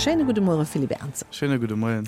Schéine gudde Muere Philippe Ernzer. Schéine gudde Moien.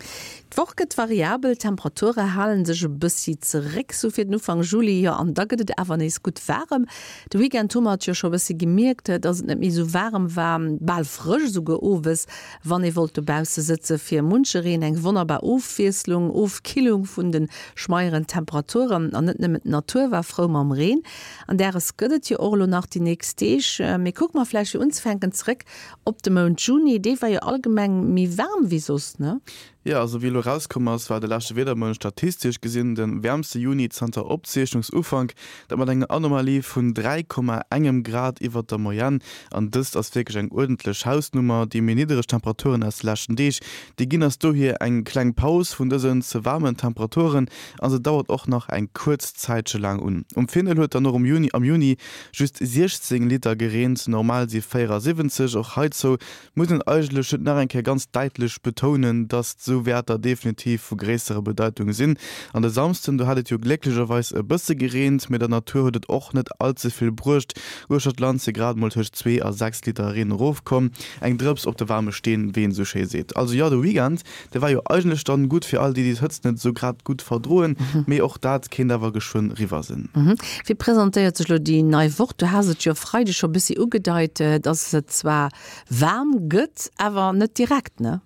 D'Woch gëtt variabel, d'Temperature hale sech e bëssi zeréck, sou fir den Ufank Juli, jo an da gëtt et awer nees gutt waarem. De Weekend hu mer et jo scho e bëssi gemierkt, dass et net méi sou waarem war, bal frësch esouguer owes, wann ee wollt dobausse sëtze. Fir munchereen eng wonnerbar Ofwiesslung, Ofkillung vun de schmeieren Temperaturen. An net nëmmen d'Natur war frou mam Reen. An däres gëtt et jo och elo nach déi nächst Deeg. Mee kucke mer vläicht fir unzefänken zeréck Op de Mount Juni, dee war jo allgemeng méi waarm wéi soss, ne? Jo, also wéi elo erauskomm ass, war de leschte Wiedermount statistesch gesinn de wäermste Juni zanter Opzeechnungsufank, dat mat enger Anomalie vun 3, engem Grad iwwert der Moyenne. An dëst ass wierklech eng uerdentlech Hausnummer. Déi méi niddereg Temperaturen aus de leschten Deeg, déi ginn eis dohier eng kleng Paus vun dësen ze waarmen Temperaturen a se dauert och nach eng kuerz Zäitche laang un. Um Findel huet dann och um Juni am Juni just 16 Liter gereent, normal si 74. Och heizou muss een eigentlech just nach eng Kéier ganz däitlech betounen, dass esou Wäerter definitiv vu gréisserer Bedeitung sinn. An de Samsden, do hat et jo glécklecherweis e bësse gereent, mee der Natur huet et och net all ze vill bruecht. Uechter d'Land si grad emol tëscht 2 a 6 Liter Reen erofkomm, eng Drëps op de waarme Steen, wéi een esou schéi seet. Also jo, de Weekend De war jo eigentlech dann gutt fir all déi, déi d'Hëtzt net esou grad gutt verdroen, mee och dat kéint awer geschwënn riwwer sinn. Wéi presentéiert sech lo déi nei Woch? Du has et jo e Freideg scho bëssi ugedeit, dass et zwar waarm gëtt, awer net direkt, ne?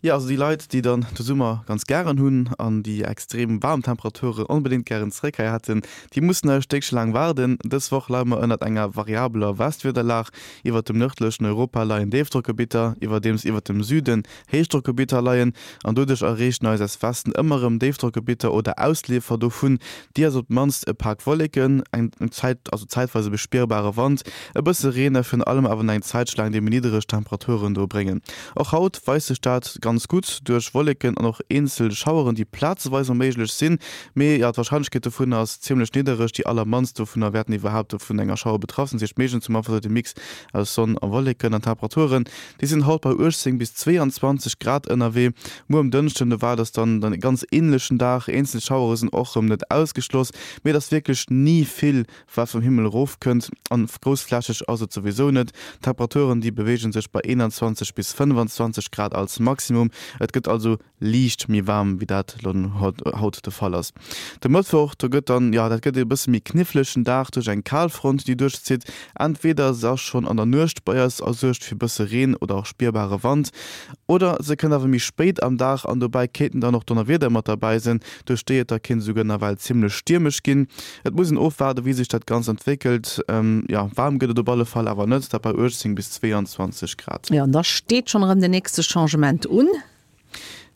Jo, also déi Leit, déi dann de Summer ganz gären hunn an déi extrem waarm Temperaturen onbedéngt gären zeréck hei hätten, déi mussen nach e Stéckche laang waarden. Dës Woch leie mer ënnert enger variabeler Westwiederlag. Iwwert dem nërdlechen Europa leien Déifdrockgebitter, iwwerdeems iwwert dem Süden Héichdrockgebitter leien an doduerch erreechen eis aus Westen ëmmer erëm Déifdrockgebitter oder Ausleefer dovun, déi eis op d'mannst e Pak Wolleken, eng Zäit, also zäitweis e bespierbare Wand, e bësse Reen a virun allem awer nach eng Zäitche laang déi méi niddereg Temperaturen do bréngen. Och haut weist sech dat ganz gutt duerch Wolleken an och eenzel Schaueren, déi plazeweis mol méiglech sinn, mee jo, d'Warscheinlechkeet dovunner ass zimmlech niddereg. Déi allermannst dovunner wäerten iwwerhaapt vun enger Schauer betraff sinn, dat heescht meeschtens hu mer einfach esou de Mix aus Sonn a Wolleken an Temperaturen, Déi sinn haut bei 18 bis 22 Grad ënnerwee. Muer um Dënschden, do waart ass dann e ganz änlechen Dag. Eenzel Schauere sinn och rëm net ausgeschloss, mee et ass wierklech ni vill, wat vum Himmel erofkënnt an groussflächeg ass et souwisou net. D'Temperaturen, déi beweege sech bei 21 bis 25 Grad als Maximum. Et gëtt also liicht méi waarm wéi dat elo haut de Fall ass. De Mëttwoch, do gëtt dann, jo, dat gëtt e bësse méi knifflegen Dag duerch eng Kalfront, déi duerchzitt. Entweder se ass schonn an der Nuecht bei eis a suergt fir bësse Reen oder och spierbare Wand, oder se kënnt awer méi spéit am Dag an dobäi kéinten dann och Donnerwieder mat derbäi sinn, duerch déi et da kéint esouguer nawell zimmlech stiermesch ginn. Et muss een ofwaarde wéi sech dat Ganzt entwéckelt. Jo, waarm gëtt et op alle Fall awer net, dat bei 18 bis 22 Grad. Jo, an da steet schonn erëm den nächste Changement un.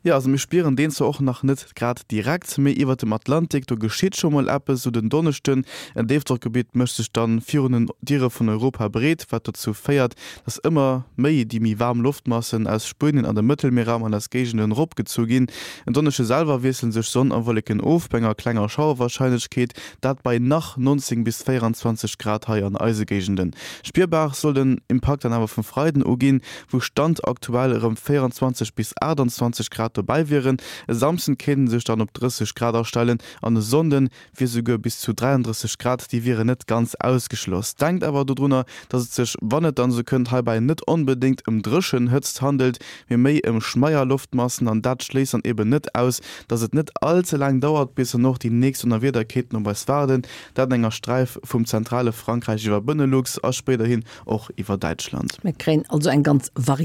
Jo, also mir spieren deen zwar och nach net grad direkt, mee iwwert dem Atlantik, do geschitt scho mol eppes. Sou den Donneschden, en Déifdrockgebitt mécht sech dann virun den Diere vun Europa breet, wat dozou féiert, dass ëmmer méi déi méi waarm Loftmassen aus Spuenien an dem Mëttelmierraum an eis Géigenden eropgezu ginn. En Donneschde selwer wiessele sech Sonn a Wolleken of, bei enger klenger Schauerwarscheinlechkeet, dat bei nach 19 bis 24 Grad hei an eise Géigenden. Spierbar soll den Impakt dann awer vum Freiden u ginn, wou Stand aktuell erëm 24 bis 28 Grad dobäi wieren. E Samsden kéint en sech dann op 30 Grad astellen an e Sonnde wier souguer bis zu 33 Grad, déi wieren net ganz ausgeschloss. Denkt awer dodrunner, dass et sech, wann et dann esou kënnt, heibäi net onbedéngt ëm dréchen Hëtzt handelt, mee méi ëm schmeier Loftmassen an dat schléisst dann eben net aus, dass et net all ze laang dauert, bis dann och déi nächst Donnerwieder kéinten op eis waarden, dat an enger Sträif vum zentrale Frankräich iwwer Benelux a spéiderhin Och iwwer Däitschland. Mir kréien also eng ganz Variété.